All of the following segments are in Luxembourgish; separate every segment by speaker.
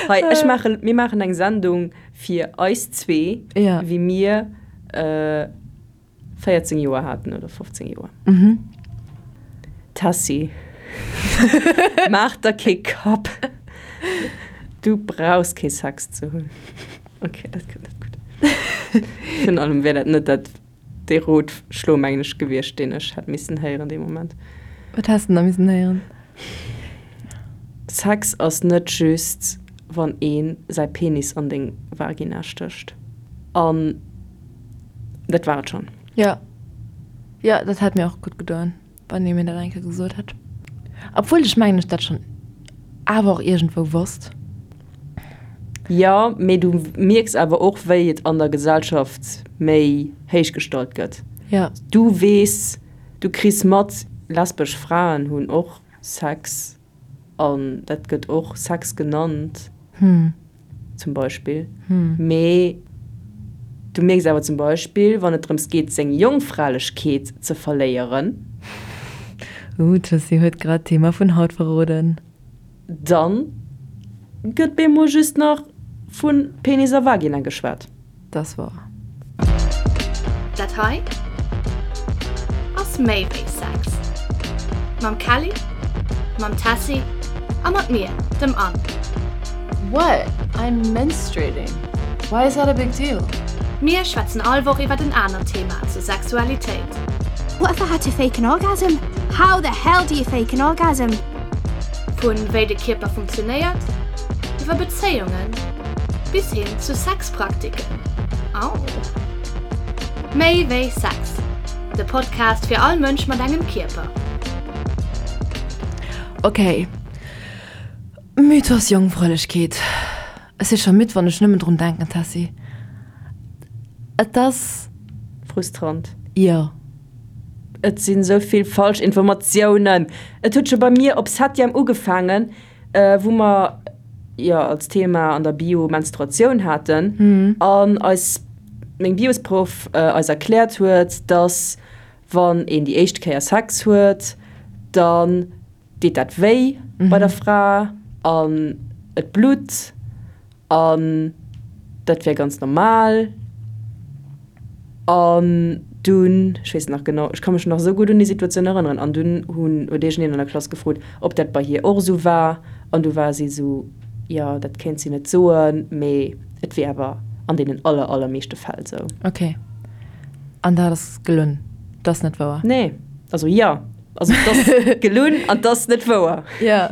Speaker 1: Hei, ech maachen, mir maachen eng Sendung fir eis zwee,
Speaker 2: Ja.
Speaker 1: wéi mir 14 Joer haten oder 15 Joer. Tessy, maach der kee Kapp, du brauchs kee Sex ze hunn. Ok, dat kënnt net gutt. Virun allem wär dat net dat dee Rotschlo, mengen ech, gewiescht, deen ech hätt missen héieren dee Moment.
Speaker 2: Wat häss de da missen héieren?
Speaker 1: Sex ass net just, wann ee säi Penis an deng Vagina stécht. An dat war et schonn.
Speaker 2: Jo, jo, dat hätt mir och gutt gedoen. Wann ee mir dat eng Kéier gesot hätt. Obwuel ech mengen ech dat schonn awer och iergendwou wosst.
Speaker 1: Jo, mee du mierks awer och wéi et an der Gesellschaft méi héich gestallt gëtt.
Speaker 2: Jo.
Speaker 1: Du weess, du kriss mat, lesbesch Fraen hunn och Sex an dat gëtt och Sex genannt. Zum Beispill. Mee du mierks awer zum Beispill, wann et drëms geet, seng Jongfralechkeet ze verléieren.
Speaker 2: Ooh, d'Jessy huet grad d'Thema vun haut verroden.
Speaker 1: Dann gëtt bemol just nach vu Penis a Vagina geschwat.
Speaker 2: T'ass wouer.
Speaker 3: Dat hei ass méi wéi Sex. Mam Kelly, mam Tessy a mat mir, dem Anne.
Speaker 2: What? I'm menstruating. Why is that a big deal?
Speaker 3: Mir schwätzen all Woch iwwert en anert Thema zur Sexualitéit.
Speaker 4: What if I had to fake an orgasm? How the hell do you fake an orgasm?
Speaker 3: Vun wéi de Kierper funktionéiert, iwwer Bezéiungen bis hin zu Sexpraktiken. Au! Méi wéi Sex, de Podcast fir all Mënsch mat engem Kierper.
Speaker 2: Ok, Mythos Jongfräulechkeet. Ech si scho midd wann ech nëmmen drun denken, Tessy. Et ass.
Speaker 1: Frustrant.
Speaker 2: Jo.
Speaker 1: Et sinn esou vill falsch Informatiounen. Et huet scho bei mir op Septième ugefaangen, wou mer jo als Thema an der Bio Menstruatioun haten an eis meng Biosproff eis erkläert huet, dass wann een déi éischt Kéier Sex huet, dann deet dat wéi bei der Fra an et blutt an dat wär ganz normal. An dunn, ech weess nach genau, ech ka mech nach esou gutt un déi Situatioun erënneren, an dunn hunn, huet iergendeen an der Klass gefrot, ob dat bei hir och esou war, an du war si esou, jo, dat kéint si net soen, mee et wier awer an deenen aller, allermeeschte Fäll esou.
Speaker 2: Ok. An dat ass gelunn? Dat ass net wouer?
Speaker 1: Nee. Also jo, also et ass gelunn an et ass net wouer.
Speaker 2: Jo.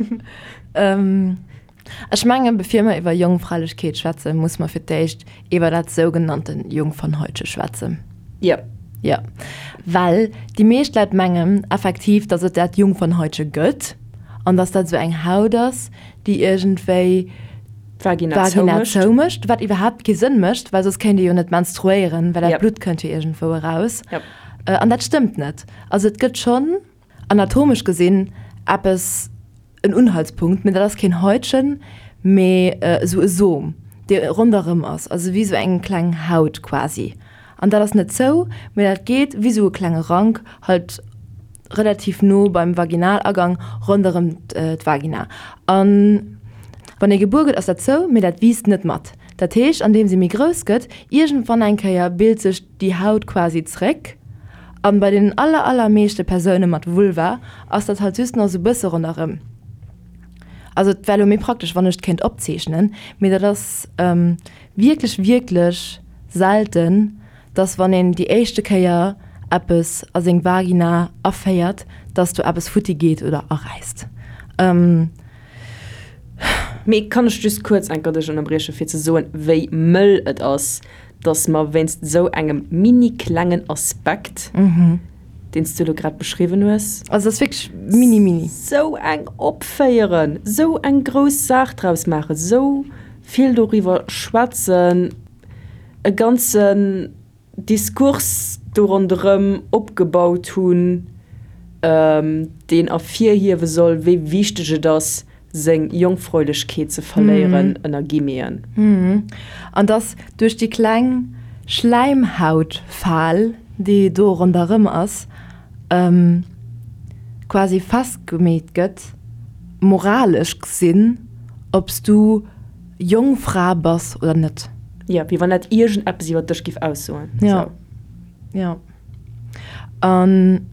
Speaker 2: Ech mengen, bevir mer iwwer Jongfräulechkeet schwätzen, muss mer fir d'éischt iwwer dat sougenannten Jungfernhäutche schwätzen.
Speaker 1: Jo.
Speaker 2: Jo. Well déi meescht Leit mengen effektiv, datt et dat Jungfernhäutche gëtt an datt dat esou eng Haut ass, déi iergendwéi
Speaker 1: d'Vagina
Speaker 2: zoumécht, wat iwwerhaapt kee Sënn mécht, well soss kéint ee jo net menstruéieren, well dat Blutt kënnt jo iergendwou eraus. An dat stëmmt net. Also et gëtt schonn anatomesch gesinn eppes, en Unhaltspunkt, mee dat ass keen Häutchen, mee esou e Som, dee ronderëm ass, also wéi esou eng kleng Haut quasi. An dat ass net zou, mee dat geet wéi esou e klenge Rank halt relativ no beim Vaginalagang ronderëm d'Vagina. An wann ee gebuer gëtt, ass dat zou, mee dat wiisst net mat. Dat heescht, andeems ee méi grouss gëtt, iergendwann eng Kéier bilt sech déi Haut quasi zréck. An bei deenen aller aller meeschte Persoune mat Vulva ass dat halt just nach sou bësse ronderëm. Also et wär lo méi praktesch wann ech et kéint opzeechnen, mee dat ass wierklech wierklech selten, dass wann een déi éischte Kéier eppes a seng Vagina aféiert, dass do eppes futti geet oder aräisst.
Speaker 1: Mee kann ech just kuerz enker dech ënnerbrieche fir ze soen, wéi mëll et ass, dass mer wéinst esou engem mini klengen Aspekt, deen s du elo grad beschriwwen hues,
Speaker 2: Also dat ass wierklech mini mini.
Speaker 1: Sou eng opféieren, sou eng grouss Saach draus maachen, sou vill doriwwer schwätzen, e ganzen Diskurs do ronderëm opgebaut hunn, deen ervirhiewe soll, wéi wichteg et ass, seng Jongfräulechkeet ze verléieren, ënner Guillemeten.
Speaker 2: An dass duerch déi kleng Schläimhautfal, déi do ronderëm ass, quasi festgemeet gëtt. Moralesch gesinn, ob s du Jongfra bass oder net.
Speaker 1: Jo, wéi wann dat iergendeppes iwwer dech giff aussoen.
Speaker 2: Jo, jo. An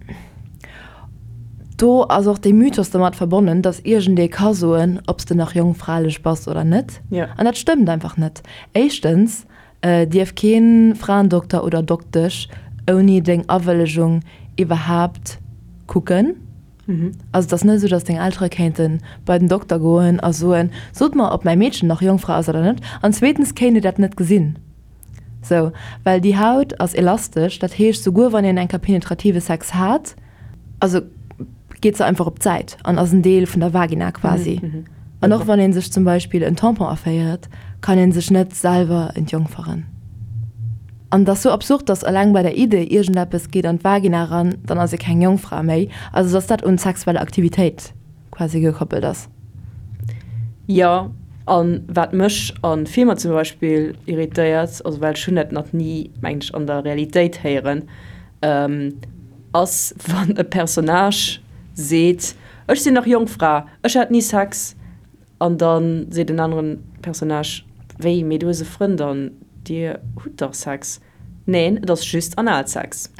Speaker 2: do ass och dee Mythos domat verbonnen, dass iergendee ka soen, ob s de nach jongfralech bass oder net.
Speaker 1: Jo.
Speaker 2: An dat stëmmt einfach net. Éischtens dierf kee Fraendokter oder Doktesch ouni deng Awëllegung iwwerhaapt kucken. Also et ass net esou, datt deng Eltere kéinte bei den Dokter goen a soen, sot mer, ob mäi Meedchen nach Jongfra ass oder net. An zweetens kéint ee dat net gesinn. Sou, well déi Haut ass elastesch, dat heescht, souguer wann een eng Kéier penetrative Sex hat, also geet se einfach op d'Säit an ass en Deel vun der Vagina quasi. An och wann ee sech zum Beispill en Tampon aféiert, kann ee sech net selwer entjongferen. An et ass sou absurd, dass eleng bei der Idee, iergendeppes geet an d'Vagina eran, dann ass ee keng Jongfra méi, also dass dat un sexuell Aktivitéit quasi gekoppelt ass.
Speaker 1: Jo, a wat mech a Filmer zum Beispill irritéiert, also well ech hunn dat nach ni, mengen ech, an der Realitéit héieren, ass wann e Personnage seet, Ech sinn nach Jongfra, ech hat ni Sex. An da seet en aneren Personnage, Wéi, mee du hues e Frënd an dir hutt dach Sex? Neen, et ass just Analsex.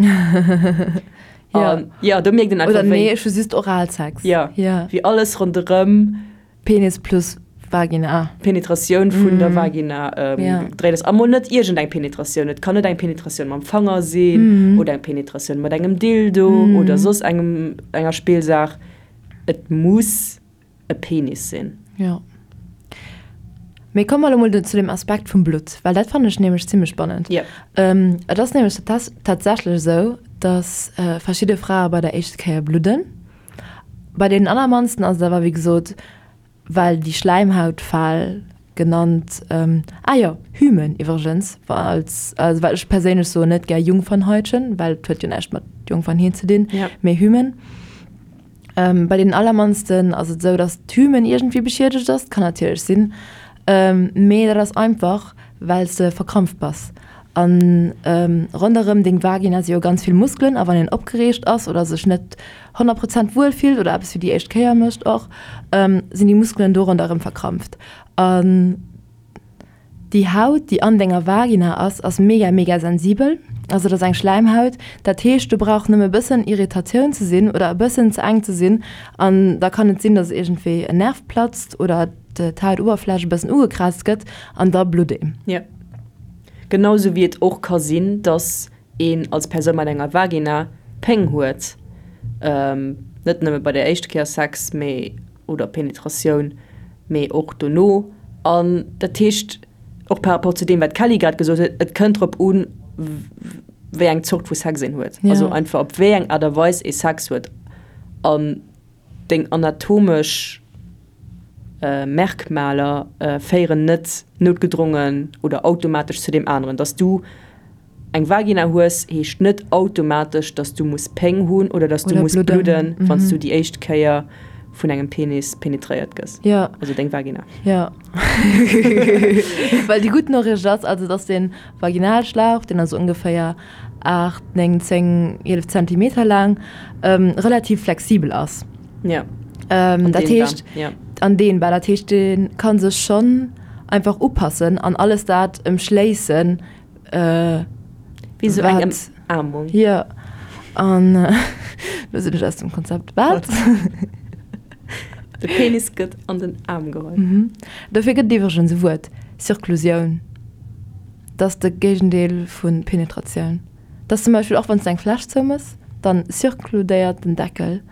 Speaker 1: An jo, do mierkt een
Speaker 2: einfach,
Speaker 1: wéi.
Speaker 2: Oder nee, ech hu just Oralsex.
Speaker 1: Jo, wéi alles ronderëm.
Speaker 2: Penis plus Vagina.
Speaker 1: Penetratioun vun der Vagina gedréit ass. A mol net iergendeng Penetratioun. Et kann net eng Penetratioun mam Fanger sinn oder eng Penetratioun mat engem Dildo oder soss engem, enger Spillsaach. Et muss. e Penis sinn.
Speaker 2: Jo. Mee komme mer elo mol zu dem Aspekt vum Blutt, well dat fannen ech nämlech zimmlech spannend.
Speaker 1: Jo.
Speaker 2: Et ass nämlech tatsächlech esou, dass verschidde Frae bei der éischte Kéier bludden. Bei deenen allermannsten ass et awer, wéi gesot, well déi Schläimhautfal genannt, ah jo, Hymen iwwregens, als, also well ech perséinlech soen net gär Jungfernhäutchen, well et huet jo näischt mat Jungfernheet ze dinn, mee Hymen. Bei deenen allermannsten ass et esou, dass d'Hymen iergendwéi beschiedegt ass, kann natierlech sinn, mee dat ass einfach, well s de verkrampft bass. A ronderëm deng Vagina si jo ganz vill Muskelen a wann een opgereegt ass oder sech net 100 Prozent wuel fillt oder eppes fir déi éischt Kéier mécht och, sinn déi Muskelen do ronderëm verkrampft. An Déi Haut, déi an denger Vagina ass, ass mega, mega sensibel. Also dat ass eng Schläimhaut. Dat heescht, do brauch nëmme e bëssen Irritatioun ze sinn oder e bëssen ze enk ze sinn an da kann et sinn, dass iergendwéi en Nerv platzt oder d'Hautoberfläch e bëssen ugekraazt gëtt an da blutt een.
Speaker 1: Jo. Genau sou wéi et och ka sinn, dass een als Persoun mat enger Vagina Péng huet, net nëmme bei der éischte Kéier Sex, mee oder Penetratioun, mee och dono. An dat heescht, och par rapport zu deem, wat d'Kelly grad gesot huet, et kënnt drop un, wéi eng Zort vu Sex een huet, also einfach op wéi eng Aart a Weis ee Sex huet. An deng anatomesch Merkmaler féieren net noutgedrongen oder automatesch zu deem aneren, dass du Eng Vagina hues, heescht net automatesch, dass du muss Péng hunn oder dass du muss bludden, wann s du déi éischt Kéier vun engem Penis penetréiert gëss.
Speaker 2: Jo.
Speaker 1: Also deng Vagina.
Speaker 2: Jo. Well déi gutt Noriicht ass also, dass de Vaginalschlauch, deen ass ongeféier 8, 9, 10, 11 Zentimeter laang, relativ flexibel ass.
Speaker 1: Jo.
Speaker 2: Dat heescht, an dehnbar. Dat heescht, dee ka sech schonn einfach upassen an alles dat ëmschléissen,
Speaker 1: Wéi sou eng Ëmaarmung.
Speaker 2: Jo, an lo sinn ech aus dem Konzept. Wat?
Speaker 1: De Penis gëtt an den Aarm geholl.
Speaker 2: Dofir gëtt et iwwregens e Wuert, Circlusioun. Dat ass de Géigendeel vu Penetratioun. Dat ass zum Beispill och wann s de eng Fläsch zoumëss, dann circludéiert den Deckel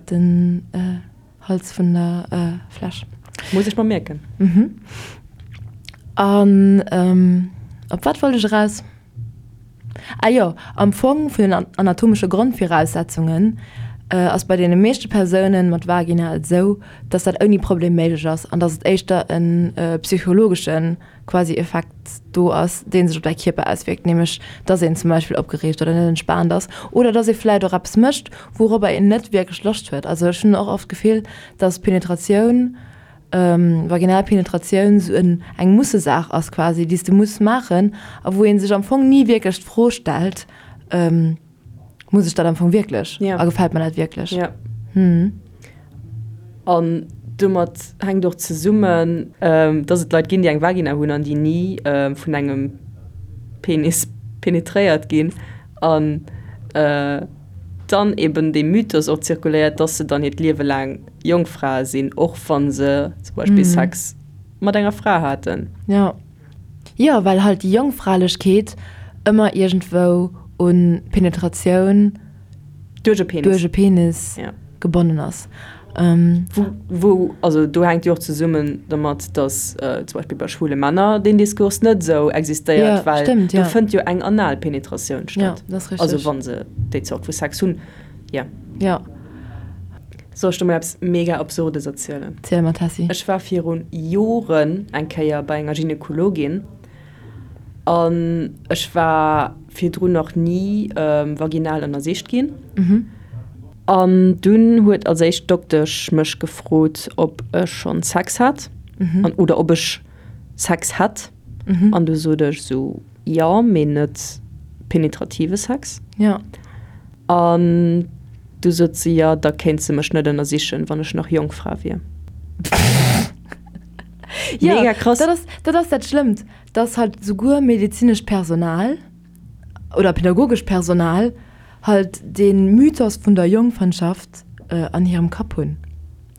Speaker 2: den. Hals vun der Fläsch.
Speaker 1: Muss ech mer mierken.
Speaker 2: Mhm. An op wat wollt ech eraus? Ah jo, am Fong vun den anatomesche Grondviraussetzungen ass bei deene meeschte Persounen mat Vagina et esou, dass dat ouni Problem méiglech ass an dass et éischter e psychologesche quasi Effekt do ass, dee sech op däi Kierper auswierkt, nämlech dass een zum Beispill opgereegt oder net entspaant ass oder dass ee vläit och eppes mécht, wouropper een net wierklech Loscht huet. Also ech hunn och oft d'Gefill, dass Penetratioun, vaginal Penetratioun esou en eng Mussesaach ass quasi, déi s de muss maachen a wou ee sech am Fong ni wierklech d'Fro stellt, Muss ech dat am Fong wierklech?
Speaker 1: A
Speaker 2: gefält mer dat wierklech?
Speaker 1: An. Domat hänkt och zesummen, dass et Leit ginn, déi eng Vagina hunn an déi ni vun engem Penis penetréiert ginn an dann eben dee Mythos och zirkuléiert, dass se dann hiert Liewe laang Jongfrae sinn, och wa se zum Beispill Sex mat enger Fra haten.
Speaker 2: Jo. Jo, well halt déi Jongfralechkeet ëmmer iergendwou un Penetratioun
Speaker 1: Duerch e Penis.
Speaker 2: Duerch e Penis gebonnen ass.
Speaker 1: Wou, also do hänkt jo och zesummen dermat, datt zum Beispill bei schwule Männer deen Diskurs net esou existéiert, well do fënnt jo eng anal Penetratioun statt. Also wa se déi Zort vu Sex hunn, jo.
Speaker 2: Jo.
Speaker 1: Soll ech der mol eppes mega Absurdes erzielen?
Speaker 2: Ziel mer, Tessy.
Speaker 1: Ech war viru Joren eng Kéier bei enger Gynekologin an ech war virdrun nach ni vaginal ënnersicht ginn. An dunn huet als éischt d'Doktesch mech gefrot, ob ech schonn Sex hat an oder ob ech Sex hätt. An du sot ech esou, jo, mee net penetrative Sex.
Speaker 2: Jo.
Speaker 1: An du sot se, jo, da kéint se mech net ënnersichen, wann ech nach Jongfra wier.
Speaker 2: Jo, Mega krass. Dat ass, dat ass dat Schlëmmt, dass halt souguer medezinescht Personal oder pädagogescht Personal halt dee Mythos vun der Jongfernschaft an hirem Kapp hunn.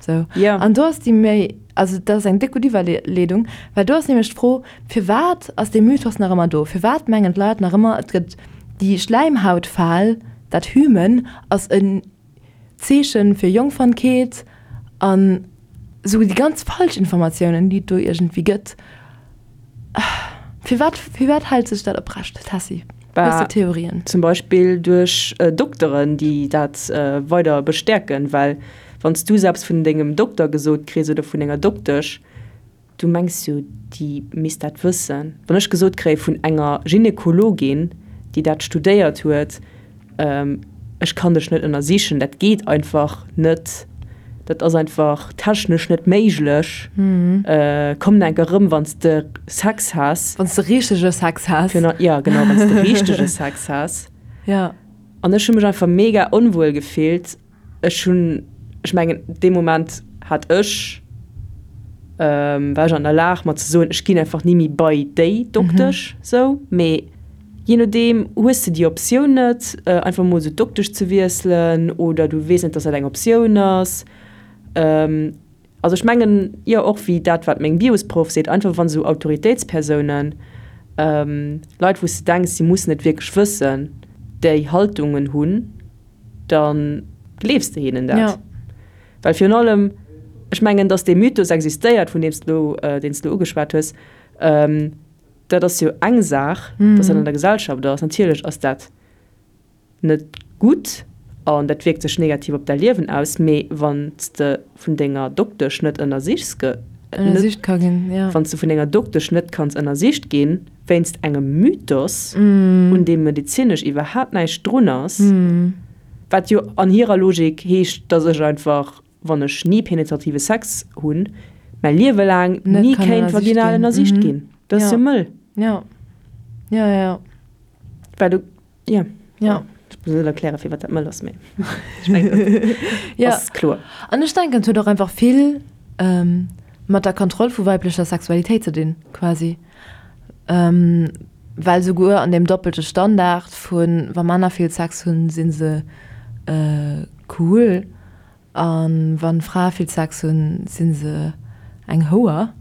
Speaker 2: Sou.
Speaker 1: Jo.
Speaker 2: An do ass déi méi, also dat ass eng déck gutt Iwwerleedung, well do ass nämlech d'Fro, Firwat ass dee Mythos nach ëmmer do? Firwat mengen d'Leit nach ëmmer, et gëtt déi Schläimhautfal, dat Hymen ass en Zeeche fir Jongfernkeet an esou déi ganz falsch Informatiounen, déi et do iergendwéi gëtt. Firwat, firwat hält sech dat oprecht, Tessy? Hues de Theorien?
Speaker 1: Zum Beispill duerch Dokteren, déi dat weider bestäerken, well wann s du selbst vun dengem Dokter gesot kriss oder vun denger Doktesch, Du mengs jo, déi misst dat wëssen. Wann ech gesot kréie vun enger Gynekologin, déi dat studéiert huet, ech kann dech net ënnersichen, dat geet einfach net, dat ass einfach technesch net méiglech, komm enk erëm, wann s de Sex has.
Speaker 2: Wann s de richtege Sex has.
Speaker 1: Jo, genau, wann s de richtege Sex has.
Speaker 2: Jo.
Speaker 1: An ech hu mech einfach mega onwuel gefillt. Ech hunn, ech mengen, dee Moment hat ech, war ech an der Lag mer ze soen, ech ginn einfach ni méi bei déi Doktesch sou. Mee jee nodeem hues de déi Optioun net, einfach mol sou d'Doktesch ze wiesselen oder du weess net, dass dat eng Optioun ass. Also ech mengen, jo, och wéi dat wat meng Biosproff seet, einfach wann esou Autoritéitspersounen, Leit wou s de denks, si mussen et wierklech wëssen, déi Haltungen hunn, da gleefs de hinnen dat.
Speaker 2: Ja.
Speaker 1: Well virun allem, ech mengen, datt dee Mythos existéiert, vun deem s de elo, deen s de elo ugeschwat hues, dat ass jo eng Saach, datt dat an der Gesellschaft ass. Natierlech ass dat net gutt an dat wierkt sech negativ op däi Liewen aus, mee wann s de vun denger Doktesch net ënnersichs ge,
Speaker 2: Ënnersicht ka ginn, ja.
Speaker 1: Wann s de vun denger Doktesch net kanns ënnersicht ginn, wéinst engem Mythos, un deem medezinesch iwwerhaapt näischt drun ass, wat jo an hirer Logik heescht, dass ech einfach, wann ech ni penetrative Sex hunn, mäi Liewe laang ni kéint vaginal ënnersicht ginn. Dat ass jo mëll.
Speaker 2: Jo, jo, jo.
Speaker 1: Well du, jo.
Speaker 2: Jo.
Speaker 1: Ech muss net erklären, firwat dat mëll ass, mee ech mengen, dat ass kloer.
Speaker 2: An ech denken, et huet och einfach vill mat der Kontroll vu weiblecher Sexualitéit ze dinn, quasi. Well souguer an deem doppelte Standard vu wa Männer vill Sex hunn, si se cool a wa Frae vill Sex hunn, si se eng Houer.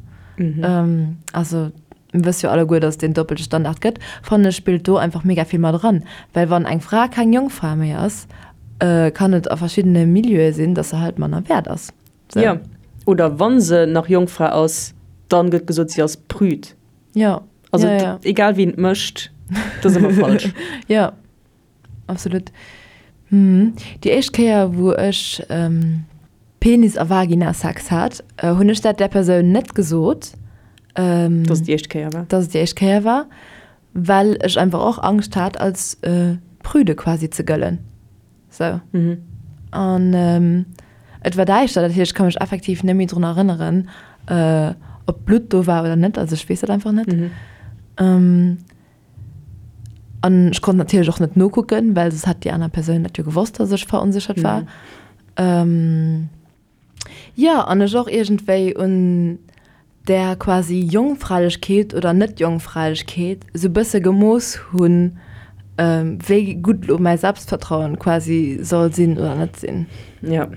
Speaker 2: Also mir wësse jo alleguer, datt et deen doppelte Standard gëtt, fannen ech spillt do einfach mega vill mat eran. Well wann eng Fra keng Jongfra méi ass, kann et a verschiddene Milieue sinn, datt se halt manner wäert ass.
Speaker 1: So. Jo, oder wann se nach Jongfra ass, dann gëtt gesot, si ass prüd.
Speaker 2: Jo.
Speaker 1: Also
Speaker 2: ja, ja.
Speaker 1: egal wien et mécht, dat ass ëmmer falsch.
Speaker 2: Jo, absolut. Mhm. Déi éischt Kéier, wou ech ähm, Penis a Vagina-Sex hat, äh, hunn ech dat där Persoun net gesot.
Speaker 1: Ähm, dass et déi éischt Kéier war.
Speaker 2: Dass et déi éischt Kéier war, well ech einfach och Angscht hat, als äh, prüde quasi ze gëllen. Sou. An et war däischter, dat heescht, ech ka mech effektiv net méi drun erënneren, ob Blutt do war oder net. Also ech weess dat einfach net. An ech konnt natierlech och net nokucken, well soss hätt déi aner Persoun dat jo gewosst, dass ech veronséchert war. Jo, an ech och iergendwéi un där quasi Jongfräilechkeet oder Net-Jongfräilechkeet esou bësse gemooss hunn, wéi gutt elo mäi Selbstvertrauen quasi soll sinn oder net sinn.
Speaker 1: Jo.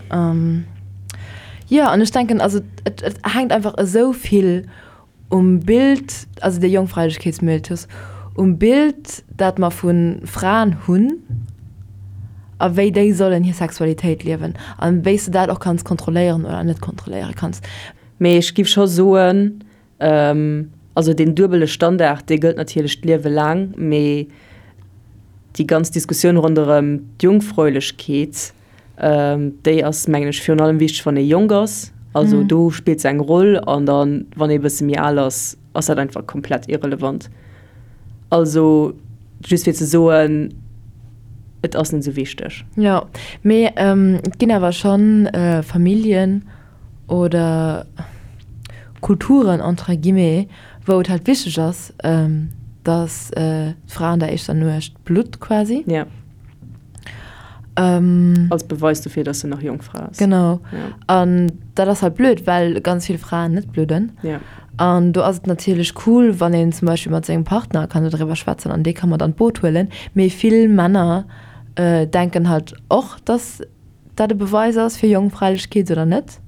Speaker 2: Jo, an ech denken, also et et hänkt einfach esou vill um Bild, also dee Jongfräilechkeetsmythos, um Bild, dat mer vu Fraen hunn a wéi déi sollen hir Sexualitéit liewen a wéi s de dat och kanns kontrolléieren oder net kontrolléiere kanns.
Speaker 1: Mee ech giff scho soen, also deen duebele Standard, dee gëllt natierlech d'Liewe laang, mee déi ganz Diskussioun ronderëm d'Jungfräulechkeet, déi ass, mengen ech, virun allem wichteg, wann ee jonk ass. Also do spillt se eng Roll an dann, wann ee e bësse méi al ass, ass dat einfach komplett irrelevant. Also just fir ze soen, et ass net esou wichteg.
Speaker 2: Jo, mee et ginn awer schonn Familljen, oder Kulturen entre guillemets, wou et halt wichteg ass, dass d'Fra an der éischter Nuecht blutt quasi.
Speaker 1: Ja. Ähm, Als Beweis dofir, dass se nach Jongfra
Speaker 2: ass. Genau. Ja. An dat ass halt blöd, well ganz vill Fraen net bludden.
Speaker 1: Ja.
Speaker 2: An do ass et natierlech cool, wann een zum Beispill mat sengem Partner kann dodriwwer schwätzen an dee ka mat an d'Boot huelen. Mee vill Männer äh, denken halt och, dass dat e Beweis ass fir Jongfräilechkeet oder net.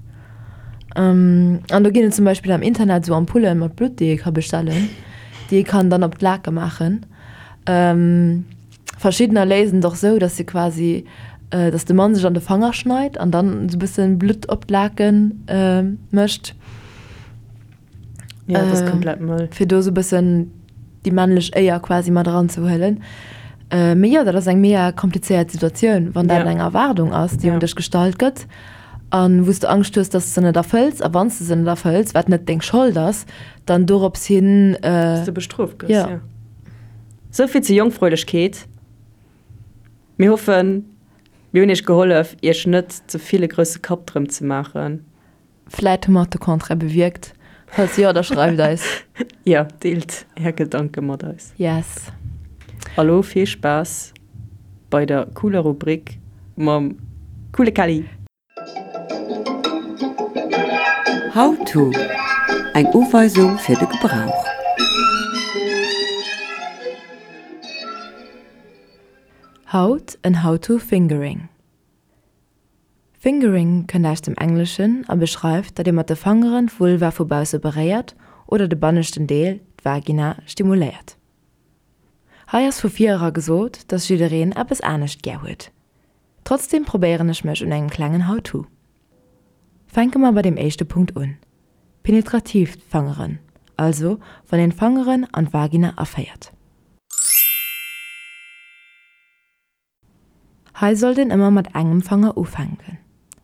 Speaker 2: An do ginn et zum Beispill am Internet esou Ampullen mat Blutt, déi ee ka bestellen, déi ee kann dann op d'Lake maachen. Verschiddener léisen et och esou, dass se quasi, dass de Mann sech an de Fanger schneit an dann esou e bësse Blutt op d'Lake mécht.
Speaker 1: Ja, dat ass komplett mëll.
Speaker 2: Fir do esou e bëssen déi männlech Éier quasi mat eranzehuelen. Mee jo, dat ass eng mega komplizéiert Situatioun, wann dat eng Erwaardung ass, déi un dech gestallt gëtt a wou s de Angscht hues, dass s de se net erfëlls. A wann s de se net erfëlls, wat net deng Schold ass, dann dorops hin.
Speaker 1: Dass de bestrooft gëss, jo. Sou vill zur Jongfräulechkeet. Mir hoffen, mir hunn iech gehollef, iech net ze vill e grousse Kapp drëm ze maachen.
Speaker 2: Vläit hu mer och de Contraire bewierkt. Falls jo, da schreift eis.
Speaker 1: Jo, deelt är Gedanke mat eis.
Speaker 2: Yes.
Speaker 1: A lo vill Spaass bei der cooler Rubrik mam coole Kelly!
Speaker 5: How to, Eng Uweisung fir de Gebrauch.
Speaker 2: Haut en How to Fingering. Fingering kënnt aus dem Engleschen a beschreift, datt ee mat de Fangeren d'Vulva vu bausse beréiert oder de banneschten Deel, d'Vagina, stimuléiert. Hei ass vu vir era gesot, datt jiddereen eppes anescht gär huet. Trotzdeem probéieren ech mech un engem klengen How-to. Fänke mer bei deem éischte Punkt un, penetratiivt Fangeren, also wann een d'Fangeren an d'Vagina aféiert. Hei sollt een ëmmer mat engem Fanger ufänken.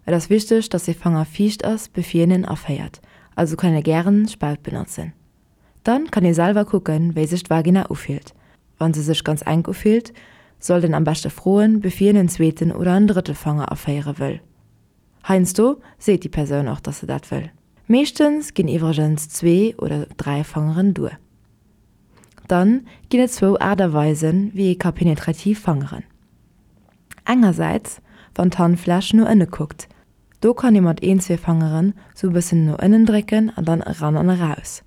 Speaker 2: Et ass wichteg, dass dee Fanger fiicht ass bevir een en aféiert, also kann ee gären Spaut benotzen. Dann kann ee selwer kucken, wéi sech d'Vagina ufillt. Wann se sech ganz enk ufillt, sollt een am beschte froen, bevir een en zweeten oder en drëtte Fanger aféiere wëll. Heiansdo seet déi Persoun och, dass se dat wëll. Meeschtens ginn iwwregens zwee oder 3 Fangeren duer. Dann ginn et zwou Aart a Weisen, wéi ee ka penetrativ fangeren. Engersäits, wann d'Handfläch no ënne kuckt. Do kann ee mat een, zwee Fangeren sou e bëssen no ënnen drécken an dann eran an eraus.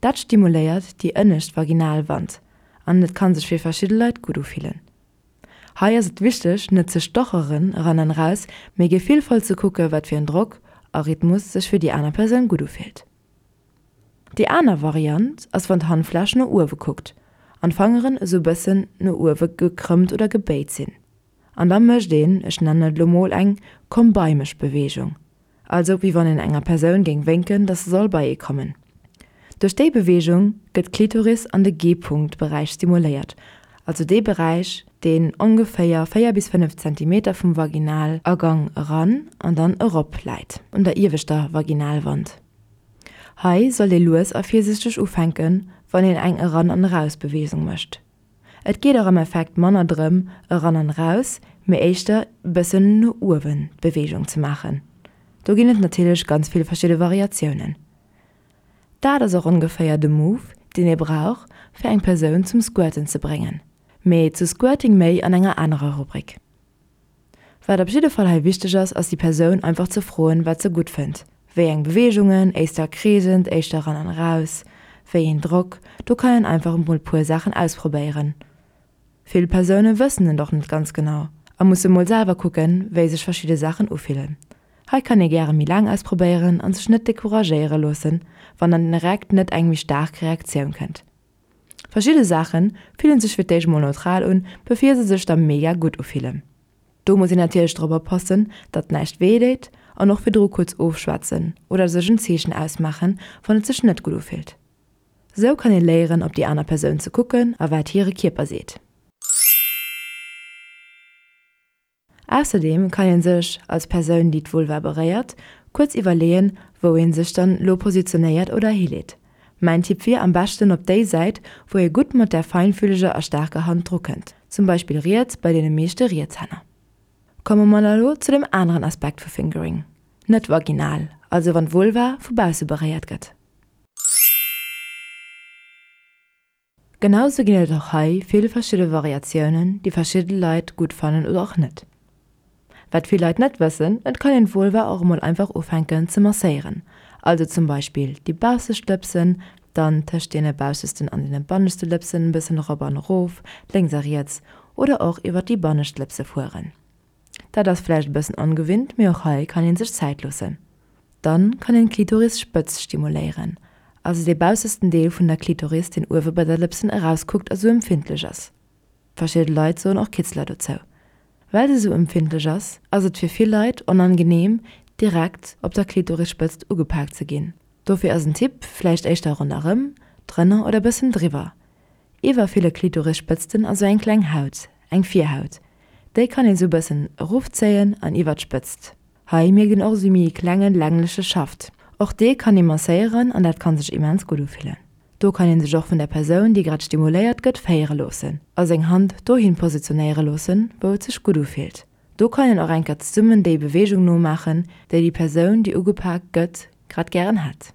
Speaker 2: Dat stimuléiert déi ënnescht Vaginalwand an et kann sech fir verschidde Leit gutt ufillen. Hei ass et wichteg, net ze stocheren eran an eraus, mee gefillvoll ze kucke wat fir en Drock a Rhythmus sech fir déi aner Persoun gutt ufillt. Déi aner Variant ass wann d'Handfläch no uewe kuckt an d'Fangeren esou bëssen no uewe gekrëmmt oder gebéit sinn. An da mécht een, ech nennen et lo mol eng Komm-bei-mech-Beweegung, also wéi wann een enger Persoun géing wénken, dass se soll bei ee kommen. Duerch déi Beweegung gëtt d'Klitoris an de G-Punkt-Beräich stimuléiert, also dee Beräich, deen ongeféier 4 bis 5 Zentimeter vum Vaginalagang eran an dann erop läit, un der ieweschter Vaginalwand. Hei sollt ee lues a virsichteg ufänken, wann een eng Eran an Eraus-Beweegung mécht. Et geet och am Effekt manner drëm eran an eraus, mee éischter bëssen no uewen d'Beweegung ze maachen. Do ginn et natierlech ganz vill verschidde Variatiounen. Dat ass och ongeféier de Move, deen ee brauch, fir eng Persoun zum Squirten ze bréngen. Mee zu Squirting méi an enger anerer Rubrik. Wat op jidde Fall hei wichteg ass, ass déi Persoun einfach ze froen, wat se gutt fënnt, wéi eng Beweegungen, éischter kreesend, éischter eran an eraus, wéi een Drock, do kann een einfach emol puer Saachen ausprobéieren. Vill Persoune wëssen et och net ganz genau a musse mol selwer kucken, wéi sech verschidde Saachen ufillen. Hei kann ee gäre méi laang ausprobéieren an sech net decouragéiere loossen, wann dann direkt net eng méi staark Reaktioun kënnt. Verschidde Saache fillen sech fir d'éischt mol neutral un, bevir se sech da mega gutt ufillen. Do muss een natierlech drop oppassen, datt näischt wéi deet an och virdru kuerz ofschwätzen oder sech en Zeechen ausmaachen, wann et sech net gutt ufillt. Sou kann ee léieren op déi aner Persoun ze kucken a wat hire Kierper seet. Ausserdeem kann een sech, als Persoun déi d'Vulva beréiert, kuerz iwwerleeën, wou een sech dann lo positionéiert oder hileet. Mäin Tipp wier, am beschten op déi Säit, wou ee gutt mat der feinfühleger a staarker Hand dru kënnt, zum Beispill riets bei deene meeschte Rietshänner. Komme mer da lo zu dem aneren Aspekt vu Fingering, net vaginal, also wann d'Vulva vu bausse beréiert gëtt. Genau sou ginn et och hei vill verschidde Variatiounen, déi verschidde Leit gutt fannen oder och net. Wat vill Leit net wëssen, et kann een d'Vulva och emol einfach ufänken ze masséieren, also zum Beispill déi baussescht Lëpsen, dann tëscht deene baussesten an deene banneschte Lëpsen e bëssen erop an erof, lénks a riets, oder och iwwer déi bannescht Lëpse fueren. Dat ass vläicht e bëssen ongewinnt, mee och hei kann een sech Zäit loossen. Dann kann een d'Klitorisspëtz stimuléieren, also dee baussesten Deel vun der Klitoris deen uewe bei der Lëpsen erauskuckt a sou empfindlech ass. Verschidde Leit soen och Kitzler dozou. Well se sou empfindlech ass, ass et fir vill Leit onangeneem direkt op der Klitorisspëtzt ugepaakt ze ginn. Dofir ass en Tipp, vläicht éischter ronderëm, drënner oder bëssen driwwer. Iwwer ville Klitorisspëtzten ass sou eng kleng Haut, eng Virhaut. Déi kann een sou bëssen erofzéien an iwwer d'Spëtzt. Hei mierkt een och sou méi e klenge längleche Schaft. Och dee kann ee masséieren an dat kann sech immens gutt ufillen. Do kann een sech och vun der Persoun, déi grad stimuléiert gëtt, féiere loossen a seng Hand dohin positionéiere loossen, wou et sech gutt ufillt. Do kann een och eng Kéier zesummen déi Beweegung nomaachen, déi déi Persoun, déi ugepak gëtt, grad gären hätt.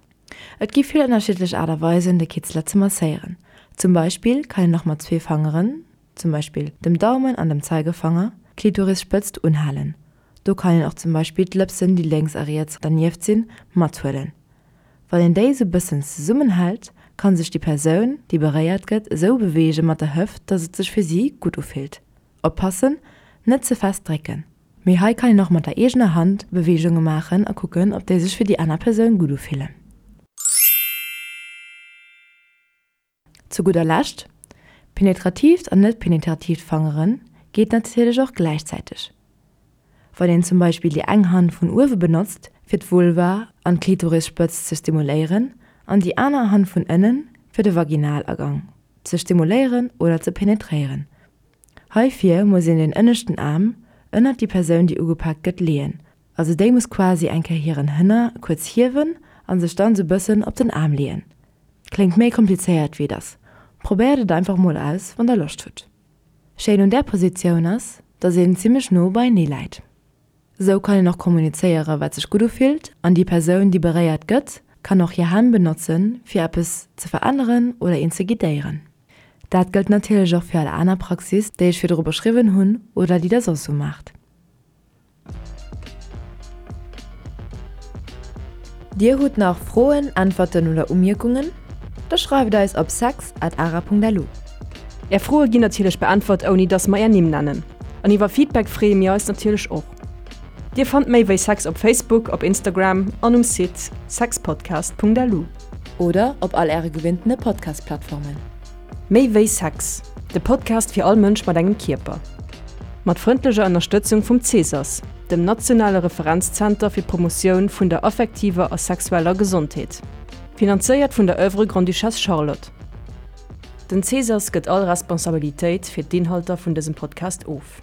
Speaker 2: Et gi vill ënnerschiddlech Aart a Weisen, de Kitzler ze masséieren. Zum Beispill kann een och mat zwee Fangeren, zum Beispill dem Daumen an dem Zeigefanger, d'Klitorisspëtzt unhalen. Do kann een och zum Beispill d'Lëpsen, déi lénks a riets dernieft sinn, mathuelen. Wann een déi sou bëssen zesummenhält, kann sech déi Persoun, déi beréiert gëtt, esou beweege mat der Hëft, dass et sech fir si gutt ufillt. Oppassen, net ze fest drécken! Mee hei kann een och mat der eegener Hand Beweegunge maachen a kucken, ob déi sech fir déi aner Persoun gutt ufillen. Zu gudder Lescht, Penetratiivt an net penetratiivt Fangere geet natierlech och gläichzäiteg. Wann een zum Beispill déi eng Hand vun uewe benotzt fir d'Vulva an d'Klitorisspëtzt ze stimuléieren an déi aner Hand vun ënnen fir de Vaginalagang ze stimuléieren oder ze penetréieren, Heifir muss een den ënneschten Aarm ënnert déi Persoun déi ugepaakt gëtt leeën, also déi muss quasi eng Kéier hiren Hënner kuerz hiewen an sech dann sou bëssen op den Aarm leeën. Kléngt méi komplizéiert wéi et ass, probéiert et einfach mol aus wann der Loscht hutt. Schéin un där Positioun ass, dass een zimmlech no beienee läit. Sou kann een och kommunizéiere wat sech gutt ufillt an déi Persoun déi beréiert gëtt kann och hir Hänn benotzen fir eppes ze veränneren oder een ze guidéieren. Dat gëllt natierlech och fir all aner Praxis déi ech virdru beschriwwen hunn oder déi der soss sou maacht. Dir hutt nach Froen, Äntwerten oder Umierkungen? Da schreift eis op sex at ara.lu.
Speaker 1: Är Froe ginn natierlech beäntwert ouni dass mer är Nimm nennen. An iwwer Feedback freeë mir eis natierlech och. Dir fannt méi wéi Sex op Facebook, op Instagram an um Site sexpodcast.lu.
Speaker 2: Oder op all äre gewinntene Podcast-Plattformen.
Speaker 1: Méi wéi Sex, de Podcast fir all Mënsch mat engem Kierper. Mat frëndlecher Ënnerstëtzung vum Cesas, dem nationale Referenzzenter fir d'Promotioun vun der affektiver a sexueller Gesondheet. Finanzéiert vun der Oeuvre Grande-Duchesse Charlotte. Den Cesas gëtt all Responsabilitéit fir d'Inhalter vun dësem Podcast of.